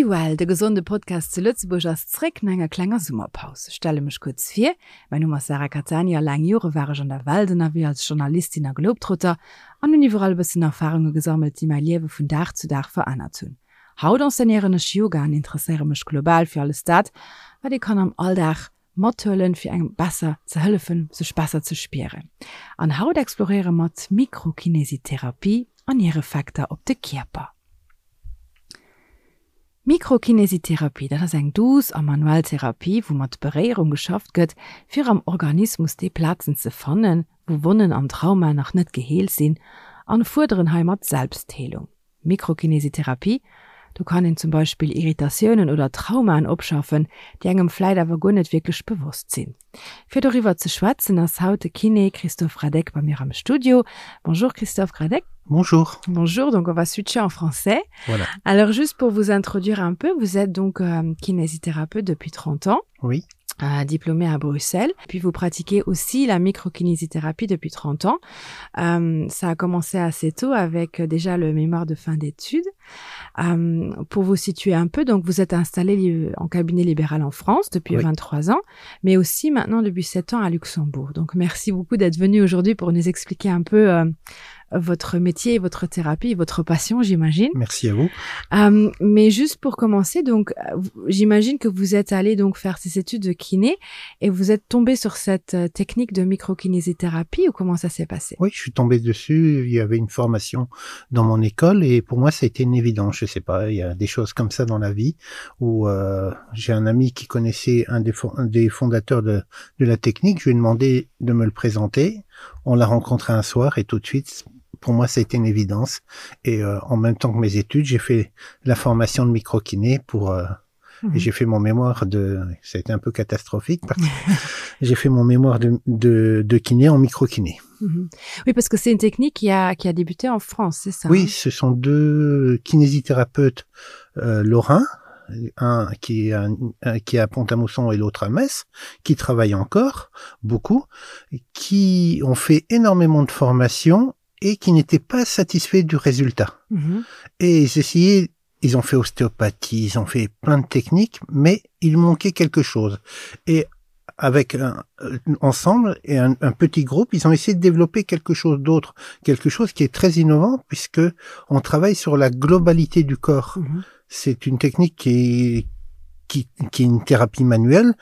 Be Well, de gesonde Podcast zu Lëtzebuerg ass zréck no enger klenger Summerpaus. Ech stelle mech kuerz vir, Mäin Numm ass Sarah Cattani a laang Jore war ech an der Welt ënnerwee als Journalistin a Globetrotter an hunn iwwerall e bëssen Erfarunge gesammelt, déi mäi Liewe vun Dag zu Dag verännert hunn. Haut enseignéieren ech Yoga an interesséiere mech global fir alles dat, wat ee kann am Alldag mathuelen, fir engem besser ze hëllefen, sech besser ze spieren. An haut exploréiere mer d'Mikrokinesitherapie an hir Effekter op de Kierper. Mikrokinesitherapie, dat ass eng douce a manuell Therapie, wou mat Beréierung geschafft gëtt, fir am Organismus déi Plazen ze fannen, wou Wonnen an Traumaen nach net geheelt sinn, an fuerderen heimat Selbstheelung. Mikrokinesitherapie, do kann een zum Beispill Irritatiounen oder Traumaen opschaffen, déi engem vläit awer guer net wierklech bewosst sinn. Fir doriwwer ze schwätzen ass haut de Kiné Christophe Radek bei mir am Studio. Bonjour Christophe Radek. Bonjour. Bonjour, donc on va switcher en français. Voilà. Alors juste pour vous introduire un peu, vous êtes donc euh, kinésithérapeute depuis 30 ans. Oui. Euh, diplômé à Bruxelles. Puis vous pratiquez aussi la microkinésithérapie depuis 30 ans. Euh, ça a commencé assez tôt avec euh, déjà le mémoire de fin d'études. Euh, pour vous situer un peu, donc vous êtes installé en cabinet libéral en France depuis oui. 23 ans, mais aussi maintenant depuis 7 ans à Luxembourg. Donc merci beaucoup d'être venu aujourd'hui pour nous expliquer un peu euh, votre métier, votre thérapie, votre passion, j'imagine. Merci à vous. Euh, mais juste pour commencer, donc euh, j'imagine que vous êtes allé donc faire ces études de kiné et vous êtes tombé sur cette euh, technique de microkinésithérapie ou comment ça s'est passé Oui, je suis tombé dessus. Il y avait une formation dans mon école et pour moi, ça a été une évidence. Je sais pas, il y a des choses comme ça dans la vie où euh, j'ai un ami qui connaissait un des, un des fondateurs de, de la technique. Je lui ai demandé de me le présenter. On l'a rencontré un soir et tout de suite, pour moi, ça a été une évidence. Et euh, en même temps que mes études, j'ai fait la formation de microkiné pour euh, mmh. et j'ai fait mon mémoire de ça a été un peu catastrophique parce que j'ai fait mon mémoire de, de, de kiné en microkiné. Mmh. Oui, parce que c'est une technique qui a, qui a débuté en France, c'est ça Oui, hein ce sont deux kinésithérapeutes euh, lorrains, un qui est, un, un, qui est à Pont-à-Mousson et l'autre à Metz, qui travaillent encore beaucoup, qui ont fait énormément de formations et qui n'étaient pas satisfaits du résultat. Mmh. Et ils essayaient, ils ont fait ostéopathie, ils ont fait plein de techniques, mais il manquait quelque chose. Et avec un, euh, ensemble et un, un petit groupe, ils ont essayé de développer quelque chose d'autre, quelque chose qui est très innovant puisque on travaille sur la globalité du corps. Mmh. C'est une technique qui est, qui, qui est une thérapie manuelle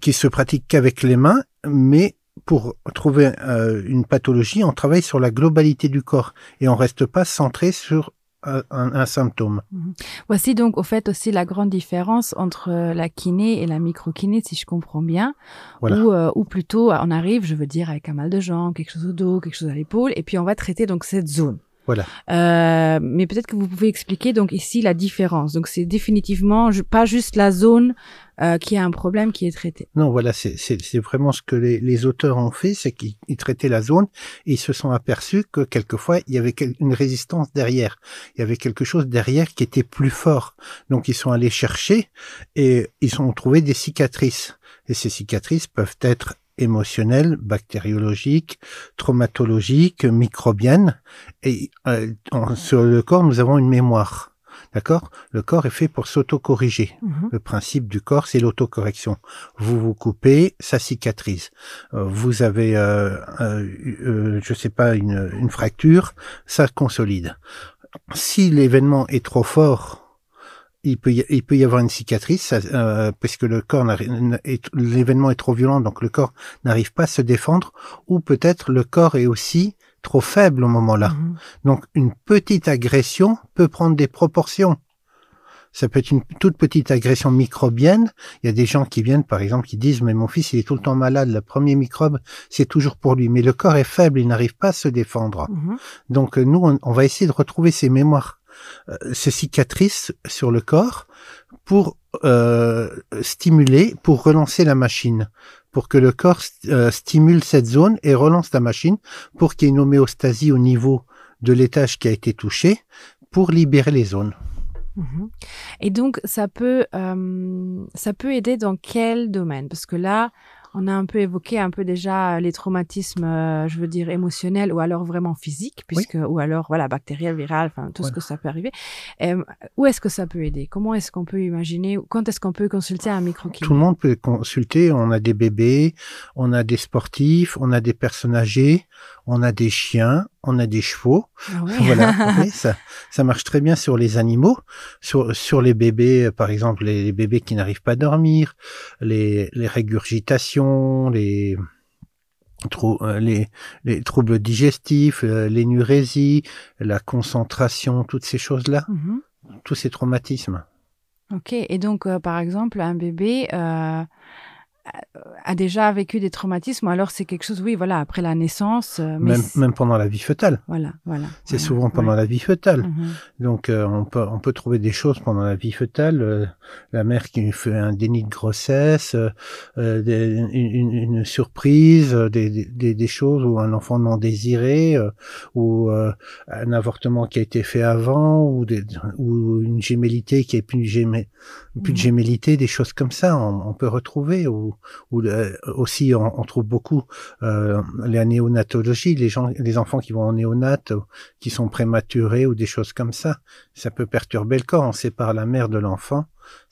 qui se pratique qu'avec les mains, mais pour trouver euh, une pathologie, on travaille sur la globalité du corps et on reste pas centré sur un, un, un symptôme. Mhm. Voici donc au fait aussi la grande différence entre euh, la kiné et la microkiné, si je comprends bien, voilà. ou, euh, ou plutôt on arrive, je veux dire, avec un mal de jambes, quelque chose au dos, quelque chose à l'épaule, et puis on va traiter donc cette zone. Voilà. Euh, mais peut-être que vous pouvez expliquer donc ici la différence. Donc c'est définitivement pas juste la zone euh, qui a un problème qui est traité. Non, voilà, c'est vraiment ce que les, les auteurs ont fait, c'est qu'ils traitaient la zone et ils se sont aperçus que quelquefois il y avait une résistance derrière. Il y avait quelque chose derrière qui était plus fort. Donc ils sont allés chercher et ils ont trouvé des cicatrices. Et ces cicatrices peuvent être émotionnelles, bactériologiques, traumatologiques, microbiennes. Et euh, en, sur le corps, nous avons une mémoire. D'accord Le corps est fait pour s'autocorriger. Mm -hmm. Le principe du corps, c'est l'autocorrection. Vous vous coupez, ça cicatrise. Euh, vous avez, euh, euh, euh, je sais pas, une, une fracture, ça consolide. Si l'événement est trop fort, il peut y, il peut y avoir une cicatrice ça, euh, puisque le corps l'événement est trop violent donc le corps n'arrive pas à se défendre ou peut-être le corps est aussi trop faible au moment là. Mm -hmm. Donc une petite agression peut prendre des proportions. Ça peut être une toute petite agression microbienne. Il y a des gens qui viennent, par exemple, qui disent mais mon fils il est tout le temps malade, le premier microbe c'est toujours pour lui. Mais le corps est faible, il n'arrive pas à se défendre. Mm -hmm. Donc euh, nous on, on va essayer de retrouver ces mémoires, euh, ces cicatrices sur le corps pour euh, stimuler, pour relancer la machine pour que le corps euh, stimule cette zone et relance la machine pour qu'il y ait une homéostasie au niveau de l'étage qui a été touché pour libérer les zones. Mmh. Et donc ça peut, euh, ça peut aider dans quel domaine Parce que là, On a un peu évoqué un peu déjà les traumatismes, euh, je veux dire émotionnels ou alors vraiment physiques, puisque oui. ou alors voilà bactériel, viral, enfin tout oui. ce que ça peut arriver. Euh, où est-ce que ça peut aider Comment est-ce qu'on peut imaginer Quand est-ce qu'on peut consulter un micro Tout le monde peut consulter. On a des bébés, on a des sportifs, on a des personnes âgées, on a des chiens, on a des chevaux. Ah ouais. voilà, oui, ça, ça marche très bien sur les animaux, sur, sur les bébés, par exemple les, les bébés qui n'arrivent pas à dormir, les, les régurgitations, les, trou euh, les, les troubles digestifs, euh, l'énurésie, la concentration, toutes ces choses-là, mm -hmm. tous ces traumatismes. Ok, et donc euh, par exemple un bébé euh, a déjà vécu des traumatismes alors c'est quelque chose oui voilà après la naissance euh, mais même, même pendant la vie fœtale voilà voilà c'est voilà, souvent pendant ouais. la vie fœtale mm -hmm. donc euh, on peut on peut trouver des choses pendant la vie fœtale euh, la mère qui fait un déni de grossesse euh, euh des, une, une, une surprise euh, des, des, des choses ou un enfant non désiré euh, ou euh, un avortement qui a été fait avant ou des, ou une gémellité qui est plus gémé, plus de mhm. gémellité des choses comme ça on, on peut retrouver ou ou euh, aussi on, on trouve beaucoup euh, la néonatologie les gens les enfants qui vont en néonate qui sont prématurés ou des choses comme ça ça peut perturber le corps on sépare la mère de l'enfant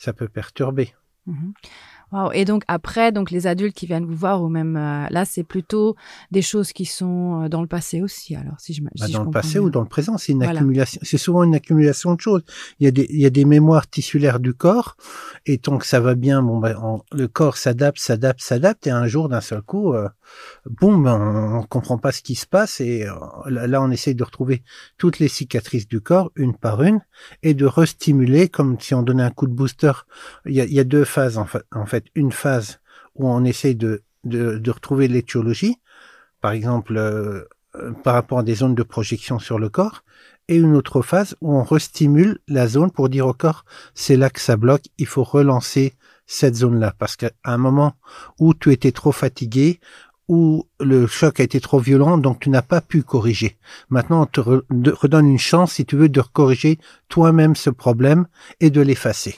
ça peut perturber mm -hmm. Wow. Et donc après, donc les adultes qui viennent vous voir ou même euh, là, c'est plutôt des choses qui sont euh, dans le passé aussi. Alors si je bah, si dans je le passé bien. ou dans le présent, c'est une voilà. accumulation. C'est souvent une accumulation de choses. Il y a des il y a des mémoires tissulaires du corps et tant que ça va bien, bon ben on, le corps s'adapte, s'adapte, s'adapte et un jour d'un seul coup, euh, boum, on, on comprend pas ce qui se passe et euh, là on essaye de retrouver toutes les cicatrices du corps une par une et de restimuler comme si on donnait un coup de booster. Il y a, il y a deux phases en fait. En fait une phase où on essaye de, de, de retrouver l'étiologie, par exemple euh, euh, par rapport à des zones de projection sur le corps, et une autre phase où on restimule la zone pour dire au corps c'est là que ça bloque, il faut relancer cette zone-là parce qu'à un moment où tu étais trop fatigué, où le choc a été trop violent, donc tu n'as pas pu corriger. Maintenant, on te re redonne une chance, si tu veux, de corriger toi-même ce problème et de l'effacer.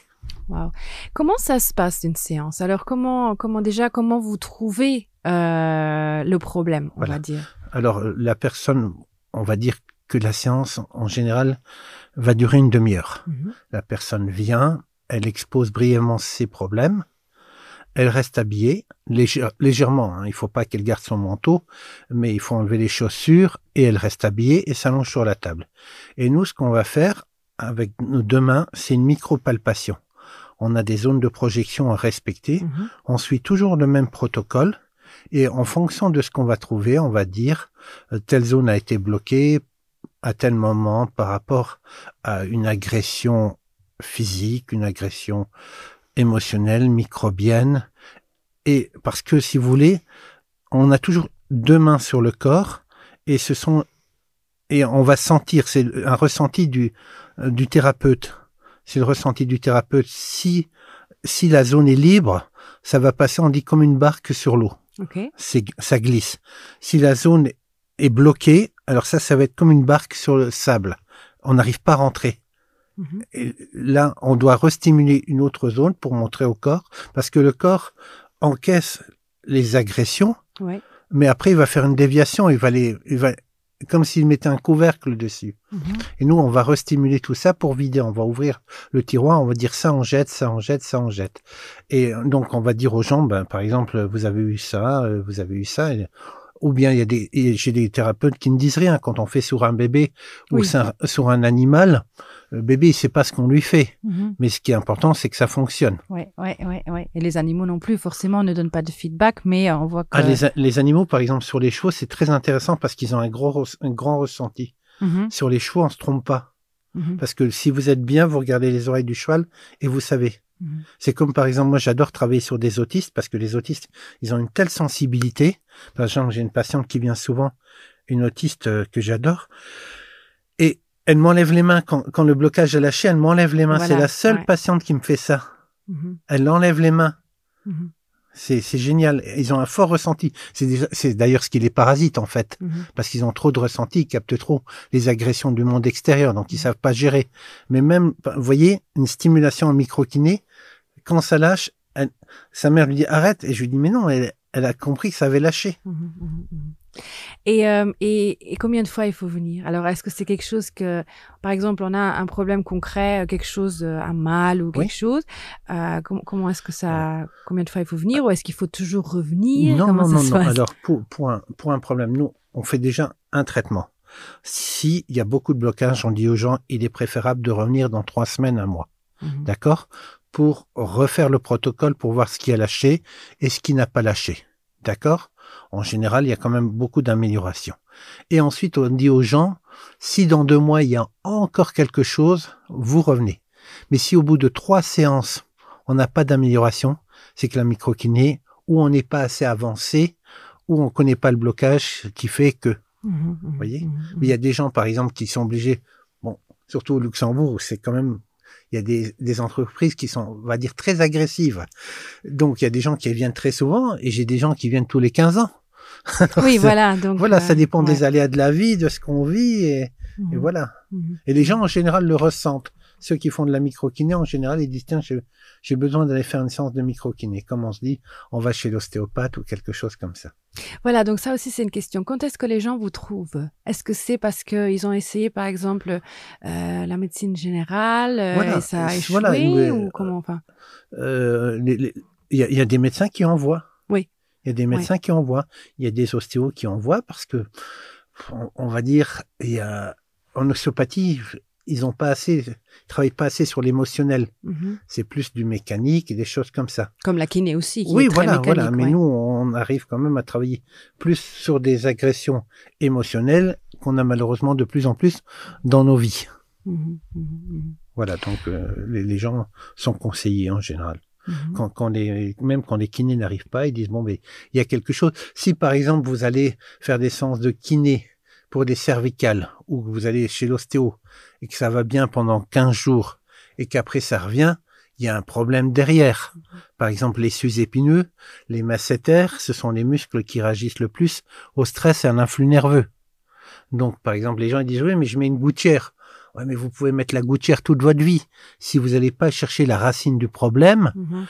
Wow. Comment ça se passe une séance Alors comment, comment déjà comment vous trouvez euh, le problème on voilà. va dire Alors la personne on va dire que la séance en général va durer une demi-heure. Mm -hmm. La personne vient, elle expose brièvement ses problèmes, elle reste habillée légère, légèrement hein, il faut pas qu'elle garde son manteau mais il faut enlever les chaussures et elle reste habillée et s'allonge sur la table et nous ce qu'on va faire avec nos deux mains c'est une micropalpation on a des zones de projection à respecter mm -hmm. on suit toujours le même protocole et en fonction de ce qu'on va trouver on va dire euh, telle zone a été bloquée à tel moment par rapport à une agression physique une agression émotionnelle microbienne et parce que si vous voulez on a toujours deux mains sur le corps et ce sont et on va sentir c'est un ressenti du du thérapeute c'est le ressenti du thérapeute si si la zone est libre ça va passer on dit comme une barque sur l'eau okay. c'est ça glisse si la zone est bloquée alors ça ça va être comme une barque sur le sable on n'arrive pas à rentrer mm -hmm. et là on doit restimuler une autre zone pour montrer au corps parce que le corps encaisse les agressions ouais. mais après il va faire une déviation il va les il va comme s'il mettait un couvercle dessus mm -hmm. et nous on va restimuler tout ça pour vider on va ouvrir le tiroir on va dire ça on jette ça on jette ça on jette et donc on va dire aux gens ben par exemple vous avez eu ça euh, vous avez eu ça et ou bien il y a des j'ai des thérapeutes qui ne disent rien quand on fait sur un bébé ou oui. sur, sur un animal le bébé il sait pas ce qu'on lui fait mm -hmm. mais ce qui est important c'est que ça fonctionne ouais, ouais, ouais, ouais. et les animaux non plus forcément ne donnent pas de feedback mais on voit que ah, les, les animaux par exemple sur les chevaux c'est très intéressant parce qu'ils ont un gros un grand ressenti mm -hmm. sur les chevaux on se trompe pas mm -hmm. parce que si vous êtes bien vous regardez les oreilles du cheval et vous savez mm -hmm. c'est comme par exemple moi j'adore travailler sur des autistes parce que les autistes ils ont une telle sensibilité par exemple j'ai une patiente qui vient souvent une autiste euh, que j'adore et elle m'enlève les mains quand, quand le blocage est lâché elle m'enlève les mains voilà, c'est la seule ouais. patiente qui me fait ça mm -hmm. elle enlève les mains mm -hmm. c'est génial ils ont un fort ressenti c'est d'ailleurs ce qui les parasite en fait mm -hmm. parce qu'ils ont trop de ressenti ils captent trop les agressions du monde extérieur donc ils mm -hmm. savent pas gérer mais même vous voyez une stimulation en microkiné quand ça lâche elle, sa mère lui dit arrête et je lui dis mais non elle, Elle a compris que ça avait lâché. Mmh, mmh, mmh. Et, euh, et, et combien de fois il faut venir Alors est-ce que c'est quelque chose que par exemple on a un problème concret, euh, quelque chose euh, un mal ou quelque oui. chose euh, com comment est-ce que ça combien de fois il faut venir ou est-ce qu'il faut toujours revenir Non comment non, non, non. alors pour, pour, un, pour un problème nous on fait déjà un traitement. S'il y a beaucoup de blocages, on dit aux gens il est préférable de revenir dans trois semaines un mois. Mmh. D'accord Pour refaire le protocole pour voir ce qui a lâché et ce qui n'a pas lâché. D'accord En général, il y a quand même beaucoup d'améliorations. Et ensuite, on dit aux gens, si dans deux mois, il y a encore quelque chose, vous revenez. Mais si au bout de trois séances, on n'a pas d'amélioration, c'est que la microkiné, ou on n'est pas assez avancé, ou on ne connaît pas le blocage qui fait que. Mmh, mmh, vous voyez mmh, Mais il y a des gens, par exemple, qui sont obligés, bon, surtout au Luxembourg, c'est quand même il y a des, des entreprises qui sont, on va dire, très agressives. Donc, il y a des gens qui viennent très souvent et j'ai des gens qui viennent tous les 15 ans. Alors, oui, voilà. Donc, voilà, euh, ça dépend ouais. des aléas de la vie, de ce qu'on vit et, mmh. et voilà. Mmh. Et les gens, en général, le ressentent. Ceux qui font de la microkiné, en général, ils disent, tiens, j'ai besoin d'aller faire une séance de microkiné. Comme on se dit, on va chez l'ostéopathe ou quelque chose comme ça. Voilà, donc ça aussi, c'est une question. Quand est-ce que les gens vous trouvent Est-ce que c'est parce qu'ils ont essayé, par exemple, euh, la médecine générale euh, Voilà, et ça a échoué voilà, mais, ou comment enfin Euh, les- les- Il y, a- il y a des médecins qui envoient. Oui. Il y a des médecins qui envoient. Il y a des ostéos qui envoient parce que, on, on va dire, il y a, en ostéopathie, ils ont pas assez, ils travaillent pas assez sur l'émotionnel. Mhm. C'est plus du mécanique et des choses comme ça. Comme la kiné aussi, qui Oui, est très voilà, mécanique. voilà. Mais ouais. nous, on arrive quand même à travailler plus sur des agressions émotionnelles qu'on a malheureusement de plus en plus dans nos vies. Mhm, mhm, mhm, Voilà, donc euh, les, les gens sont conseillés en général. mhm. Quand, quand les, même quand les kinés n'arrivent pas, ils disent bon, mais il y a quelque chose. Si par exemple vous allez faire des séances de kiné pour des cervicales ou que vous allez chez l'ostéo et que ça va bien pendant 15 jours et qu'après ça revient, il y a un problème derrière. Par exemple, les sus-épineux, les masséters, ce sont les muscles qui réagissent le plus au stress et à l'influx nerveux. Donc, par exemple, les gens ils disent oui, mais je mets une gouttière. Ouais, mais vous pouvez mettre la gouttière toute votre vie. Si vous n'allez pas chercher la racine du problème, Mhm.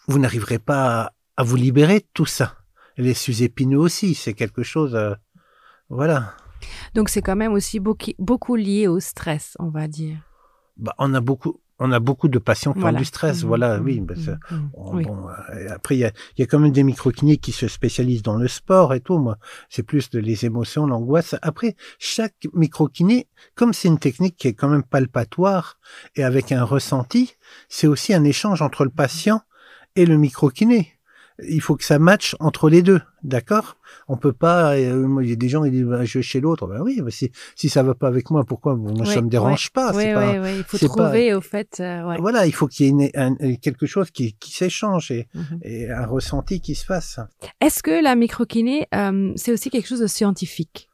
vous n'arriverez pas à, à vous libérer de tout ça. Et les sus-épineux aussi, c'est quelque chose. euh, voilà. Donc c'est quand même aussi beaucoup, beaucoup lié au stress, on va dire. Bah, on a beaucoup, on a beaucoup de patients qui Voilà. ont du stress. Mhm, Voilà, mhm, oui. bah, ça- mhm, on- oui. bon, euh, après, il y a, il y a quand même des microkinés qui se spécialisent dans le sport et tout. Moi, c'est plus de les émotions, l'angoisse. Après, chaque microkiné, comme c'est une technique qui est quand même palpatoire et avec un ressenti, c'est aussi un échange entre le patient et le microkiné. Il faut que ça matche entre les deux, d'accord On peut pas. euh, moi, il y a des gens qui disent bah, je vais chez l'autre. Ben oui, mais si si ça va pas avec moi, pourquoi Bon, Moi, Oui, ça me dérange pas. Oui, c'est pas oui, oui. Il faut c'est pas- trouver au fait. euh, ouais. Voilà, il faut qu'il y ait une- un- quelque chose qui, qui s'échange et, Mhm. et un ressenti qui se fasse. Est-ce que la microkiné, euh, c'est aussi quelque chose de scientifique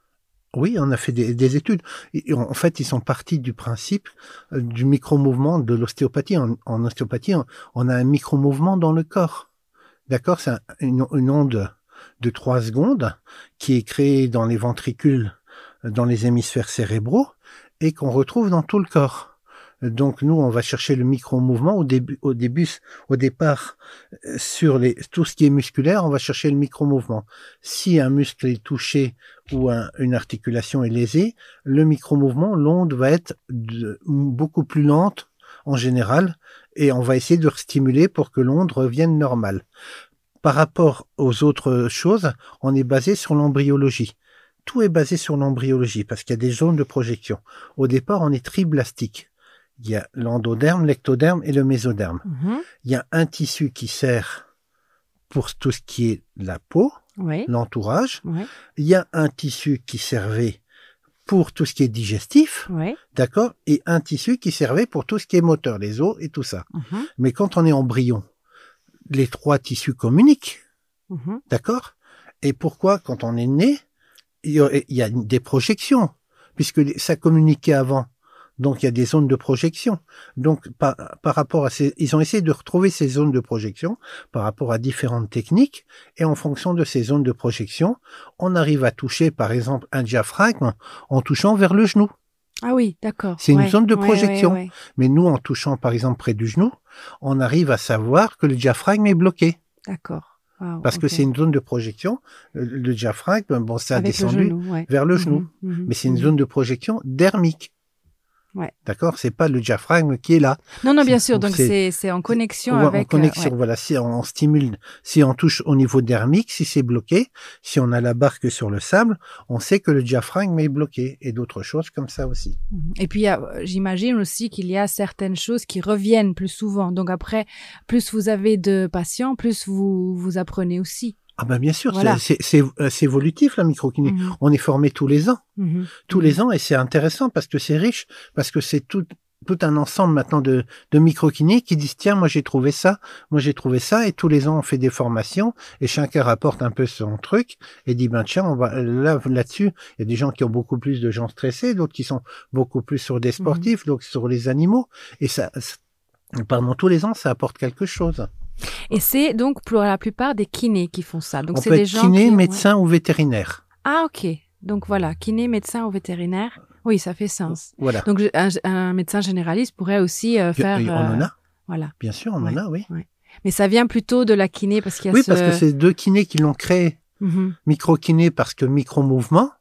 Oui, on a fait des, des études. Et en fait, ils sont partis du principe euh, du micro-mouvement de l'ostéopathie. En, en ostéopathie, on, on a un micro-mouvement dans le corps. D'accord C'est un- une, une onde de trois secondes qui est créée dans les ventricules, euh, dans les hémisphères cérébraux et qu'on retrouve dans tout le corps. Donc nous, on va chercher le micro-mouvement au début, au début, au départ euh, sur les, tout ce qui est musculaire, on va chercher le micro-mouvement. Si un muscle est touché ou un- une articulation est lésée, le micro-mouvement, l'onde va être de- beaucoup plus lente en général et on va essayer de stimuler pour que l'onde revienne normale. Par rapport aux autres choses, on est basé sur l'embryologie. Tout est basé sur l'embryologie parce qu'il y a des zones de projection. Au départ, on est triblastique. Il y a l'endoderme, l'ectoderme et le mésoderme. Mhm. Il y a un tissu qui sert pour tout ce qui est la peau, Oui. l'entourage. Oui. Il y a un tissu qui servait pour tout ce qui est digestif, Oui. d'accord, et un tissu qui servait pour tout ce qui est moteur, les os et tout ça. Mhm. Mais quand on est embryon, les trois tissus communiquent, Mhm. d'accord Et pourquoi, quand on est né, il y a, il y a des projections, puisque ça communiquait avant. Donc, il y a des zones de projection. Donc, par, par rapport à ces, ils ont essayé de retrouver ces zones de projection par rapport à différentes techniques. Et en fonction de ces zones de projection, on arrive à toucher, par exemple, un diaphragme en touchant vers le genou. Ah oui, d'accord. C'est une Ouais, zone de ouais, projection. ouais, ouais. Mais nous, en touchant, par exemple, près du genou, on arrive à savoir que le diaphragme est bloqué. D'accord. Wow, Parce que ok. c'est une zone de projection, euh, le diaphragme, bon, ça a Avec le descendu genou, ouais. vers le genou. Mhm, mhm, Mais c'est une mhm. zone de projection dermique. Ouais. D'accord C'est pas le diaphragme qui est là. Non, non, bien C'est- sûr. Donc, c'est- c'est c'est en connexion Ouais, avec. en connexion, euh, ouais. voilà. Si on, on stimule, si on touche au niveau dermique, si c'est bloqué, si on a la barque sur le sable, on sait que le diaphragme est bloqué et d'autres choses comme ça aussi. Mhm. Et puis, il y a, euh, j'imagine aussi qu'il y a certaines choses qui reviennent plus souvent. Donc après, plus vous avez de patients, plus vous vous apprenez aussi. Ah ben bien sûr, Voilà. c'est c'est euh, c'est évolutif la microkiné. Mhm. On est formé tous les ans, Mhm. tous les ans, et c'est intéressant parce que c'est riche, parce que c'est tout tout un ensemble maintenant de, de microkinés qui disent tiens moi j'ai trouvé ça, moi j'ai trouvé ça, et tous les ans on fait des formations et chacun rapporte un peu son truc et dit ben tiens on va là là-dessus il y a des gens qui ont beaucoup plus de gens stressés, d'autres qui sont beaucoup plus sur des sportifs, d'autres sur les animaux et ça, ça- pardon tous les ans ça apporte quelque chose. Et c'est donc pour la plupart des kinés qui font ça. Donc on c'est peut des être gens kiné, qui... ouais. médecin ou vétérinaire. Ah ok. Donc voilà, kiné, médecin ou vétérinaire. Oui, ça fait sens. Voilà. Donc je- un, un médecin généraliste pourrait aussi euh, faire. Et on en euh, a, Voilà. bien sûr, on Ouais. en a, oui. Mais ça vient plutôt de la kiné parce qu'il y a Oui, ce. parce que c'est deux kinés qui l'ont créé. Mhm. Micro-kiné parce que micro-mouvement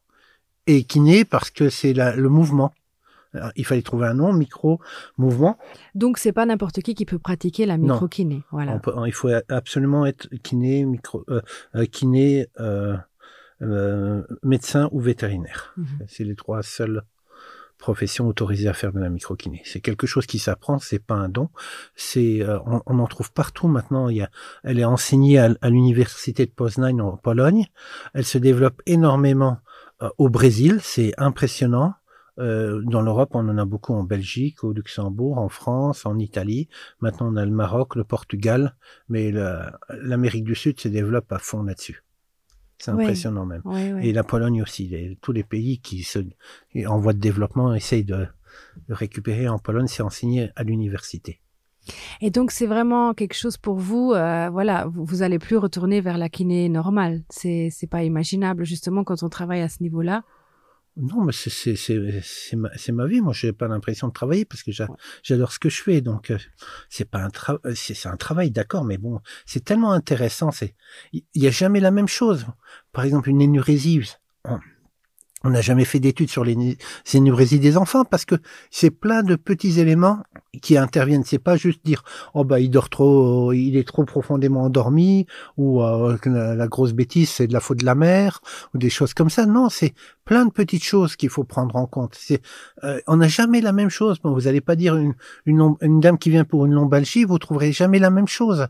et kiné parce que c'est la- le mouvement. Alors, il fallait trouver un nom, micro-mouvement. Donc c'est pas n'importe qui qui peut pratiquer la Non. micro-kiné. Voilà. On peut- il faut absolument être kiné, micro, euh, euh, kiné, euh, euh, médecin ou vétérinaire. Mhm. C'est les trois seules professions autorisées à faire de la microkiné. C'est quelque chose qui s'apprend, c'est pas un don. C'est, euh, on, on en trouve partout maintenant. Il y a, elle est enseignée à, à l'université de Poznań en Pologne. Elle se développe énormément euh, au Brésil. C'est impressionnant. Euh, dans l'Europe, on en a beaucoup en Belgique, au Luxembourg, en France, en Italie. Maintenant, on a le Maroc, le Portugal, mais la- l'Amérique du Sud se développe à fond là-dessus. C'est Ouais. impressionnant même. Ouais, ouais. Et la Pologne aussi, les- tous les pays qui se en voie de développement essayent de, de récupérer. En Pologne, c'est enseigné à l'université. Et donc c'est vraiment quelque chose pour vous. euh, voilà, vous, vous allez plus retourner vers la kiné normale. C'est c'est pas imaginable justement quand on travaille à ce niveau-là. Non, mais c'est c'est c'est c'est ma, c'est ma vie. Moi, j'ai pas l'impression de travailler parce que j'a- j'adore ce que je fais. Donc, euh, c'est pas un travail, c'est c'est un travail, d'accord, mais bon, c'est tellement intéressant. C'est il y a jamais la même chose. Par exemple, une énurésie. On on n'a jamais fait d'études sur les né- les énurésies des enfants parce que c'est plein de petits éléments qui interviennent. C'est pas juste dire oh bah il dort trop, il est trop profondément endormi ou euh, que la, la grosse bêtise c'est de la faute de la mère ou des choses comme ça. Non, c'est plein de petites choses qu'il faut prendre en compte. C'est euh, on n'a jamais la même chose. Bon, vous n'allez pas dire une, une, lom- une dame qui vient pour une lombalgie, vous trouverez jamais la même chose.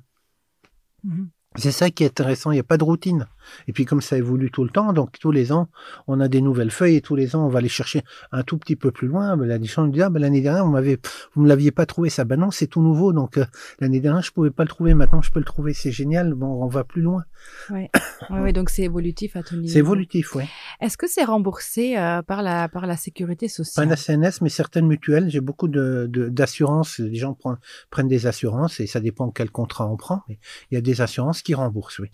Mhm. C'est ça qui est intéressant, il n'y a pas de routine. Et puis comme ça évolue tout le temps, donc tous les ans, on a des nouvelles feuilles et tous les ans, on va les chercher un tout petit peu plus loin. Ben, la gens nous disent, ah, ben, l'année dernière, on m'avait, vous me l'aviez pas trouvé, ça. Ben non, c'est tout nouveau. Donc euh, l'année dernière, je pouvais pas le trouver. Maintenant, je peux le trouver. C'est génial. Bon, on va plus loin. Ouais. Ouais, ouais, donc c'est évolutif à tout niveau. C'est évolutif, oui. Est-ce que c'est remboursé euh, par la par la sécurité Pas sociale la CNS, mais certaines mutuelles. J'ai beaucoup de, de- d'assurances. Les gens prennent, prennent des assurances et ça dépend quel contrat on prend. Mais il y a des assurances qui remboursent, oui.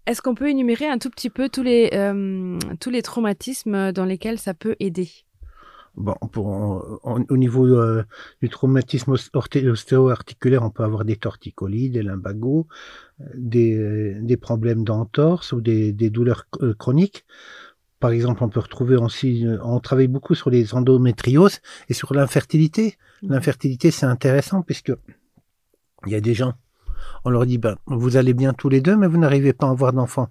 Est-ce qu'on peut énumérer un tout petit peu tous les euh, tous les traumatismes dans lesquels ça peut aider Bon, pour, en- au niveau euh, du traumatisme os- orté- ostéo-articulaire, on peut avoir des torticolis, des lumbagos, euh, des, des problèmes d'entorse ou des, des douleurs euh, chroniques. Par exemple, on peut retrouver aussi, euh, on travaille beaucoup sur les endométrioses et sur l'infertilité. Mhm. L'infertilité, c'est intéressant puisque il y a des gens, on leur dit, ben, vous allez bien tous les deux, mais vous n'arrivez pas à avoir d'enfants.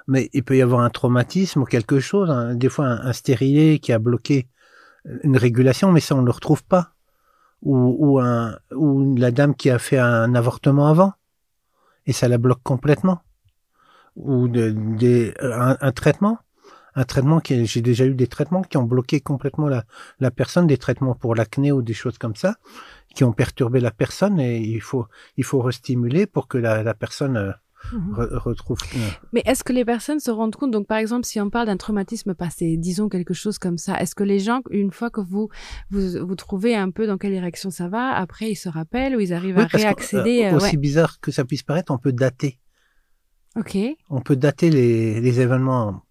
Mais il peut y avoir un traumatisme ou quelque chose, hein, des fois un, un stérilet qui a bloqué une régulation, mais ça, on ne le retrouve pas. Ou, ou, un, ou la dame qui a fait un avortement avant, et ça la bloque complètement. Ou de, des, un, un traitement. Un traitement qui, j'ai déjà eu des traitements qui ont bloqué complètement la, la personne, des traitements pour l'acné ou des choses comme ça, qui ont perturbé la personne et il faut, il faut restimuler pour que la, la personne euh, Mhm. re- retrouve. euh, Mais est-ce que les personnes se rendent compte Donc, par exemple, si on parle d'un traumatisme passé, disons quelque chose comme ça, est-ce que les gens, une fois que vous, vous, vous trouvez un peu dans quelle direction ça va, après ils se rappellent ou ils arrivent Oui, à parce que, réaccéder euh, euh, aussi ouais. bizarre que ça puisse paraître, on peut dater. Ok. On peut dater les, les événements.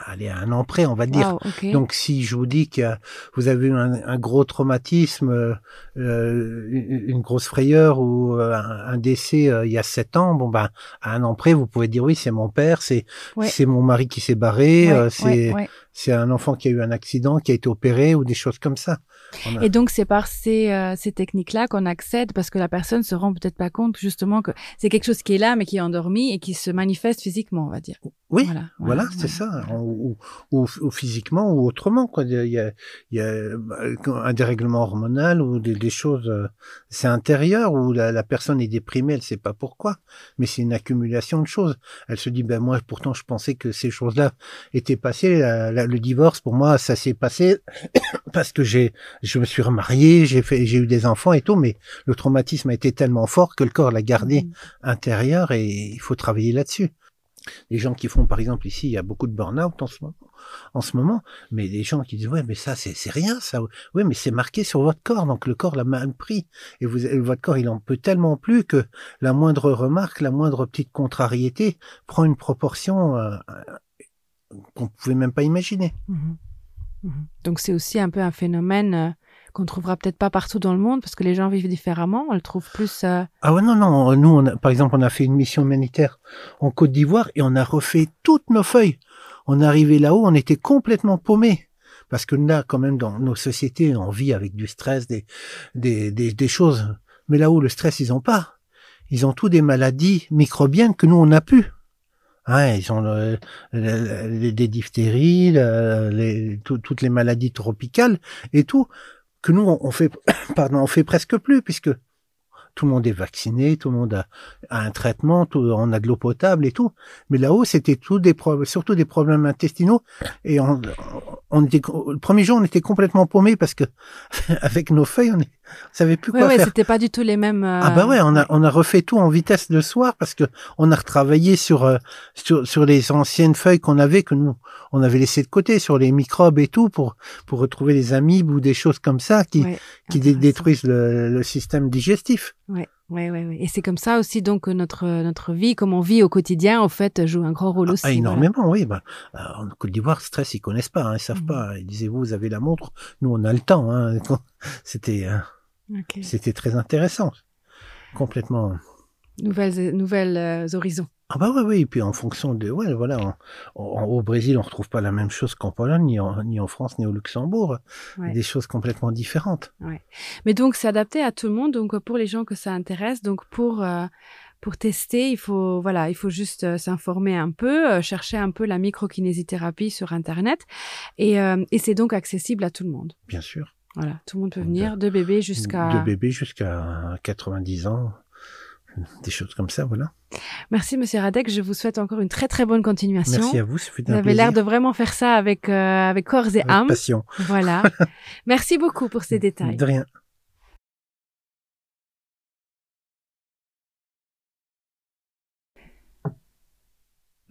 Allez, à un an près, on va dire. Wow, okay. Donc si je vous dis que vous avez eu un, un gros traumatisme, euh, euh une grosse frayeur ou euh, un, un décès euh, il y a sept ans, bon ben à un an près, vous pouvez dire oui, c'est mon père, c'est ouais. c'est mon mari qui s'est barré, ouais, euh, c'est ouais, ouais. c'est un enfant qui a eu un accident, qui a été opéré ou des choses comme ça. On a... Et donc c'est par ces, euh, ces techniques-là qu'on accède parce que la personne se rend peut-être pas compte justement que c'est quelque chose qui est là mais qui est endormi et qui se manifeste physiquement, on va dire. Oui, Voilà, voilà, voilà, c'est voilà. ça, ou, ou, ou physiquement ou autrement quoi. Il y a, il y a un dérèglement hormonal ou des, des choses, euh, c'est intérieur où la, la personne est déprimée, elle sait pas pourquoi, mais c'est une accumulation de choses. Elle se dit ben moi pourtant je pensais que ces choses-là étaient passées. La, la, le divorce pour moi ça s'est passé parce que j'ai, je me suis remarié, j'ai fait, j'ai eu des enfants et tout, mais le traumatisme a été tellement fort que le corps l'a gardé mmh. intérieur et il faut travailler là-dessus. Les gens qui font, par exemple, ici, il y a beaucoup de burn-out en ce moment, en ce moment, mais des gens qui disent ouais, mais ça, c'est rien, ça. Oui, mais c'est marqué sur votre corps, donc le corps l'a mal pris. Et vous, votre corps, il en peut tellement plus que la moindre remarque, la moindre petite contrariété prend une proportion euh, qu'on pouvait même pas imaginer. Mmh. Mmh. Donc c'est aussi un peu un phénomène euh, qu'on trouvera peut-être pas partout dans le monde parce que les gens vivent différemment, on le trouve plus euh... Ah ouais non non, nous on a, par exemple on a fait une mission humanitaire en Côte d'Ivoire et on a refait toutes nos feuilles. On est arrivé là-haut, on était complètement paumés parce que là quand même dans nos sociétés on vit avec du stress, des des des, des choses mais là-haut le stress ils ont pas. Ils ont tous des maladies microbiennes que nous on n'a plus. Hein, ils ont le, le, les, des diphtéries, le, les, tout, toutes les maladies tropicales et tout que nous on, on fait pardon, on fait presque plus puisque tout le monde est vacciné, tout le monde a, a un traitement, tout, on a de l'eau potable et tout. Mais là-haut, c'était tout des problèmes, surtout des problèmes intestinaux. Et on, on était, le premier jour, on était complètement paumé parce que avec nos feuilles, on ne savait plus ouais, quoi ouais, faire. C'était pas du tout les mêmes. Euh... Ah bah ouais, on a, on a refait tout en vitesse le soir parce que on a retravaillé sur, euh, sur, sur les anciennes feuilles qu'on avait, que nous, on avait laissé de côté, sur les microbes et tout, pour, pour retrouver les amibes ou des choses comme ça qui, ouais, qui détruisent le, le système digestif. Ouais, ouais, ouais, ouais. Et c'est comme ça aussi donc notre notre vie, comme on vit au quotidien, au fait, joue un grand rôle aussi. Ah, énormément, voilà. oui. Bah, euh, en Côte d'Ivoire, stress, ils connaissent pas, hein, ils savent mmh. pas. Ils disaient vous, vous avez la montre, nous on a le temps. Hein. C'était euh, okay. c'était très intéressant, complètement. Nouvelles nouvelles euh, horizons. Ah bah oui, oui, et puis en fonction de ouais voilà en, en, au Brésil on retrouve pas la même chose qu'en Pologne ni en, ni en France ni au Luxembourg ouais. des choses complètement différentes. Ouais. Mais donc c'est adapté à tout le monde donc pour les gens que ça intéresse donc pour euh, pour tester il faut voilà il faut juste euh, s'informer un peu euh, chercher un peu la microkinésithérapie sur internet et, euh, et c'est donc accessible à tout le monde. Bien sûr. Voilà, tout le monde peut venir de, de bébé jusqu'à de bébé jusqu'à 90 ans des choses comme ça voilà. Merci monsieur Radek, je vous souhaite encore une très très bonne continuation. Merci à vous, ce fut vous un avez l'air de vraiment faire ça avec euh, avec corps et avec âme. Passion. Voilà. Merci beaucoup pour ces détails. De rien.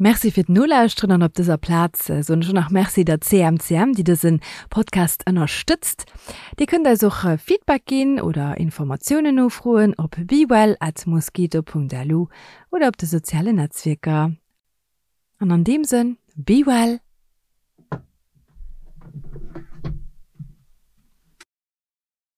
Merci fir d'Nolauschteren an op dëser Plaz soen ech och nach Merci der CMCM, déi dëse Podcast ënnerstëtzt. Dir kënnt eis och Feedback ginn oder Informatiounen nofroen op bewell@mosquito.lu oder op de sozialen Netzwierker. An an deem Sënn, be well!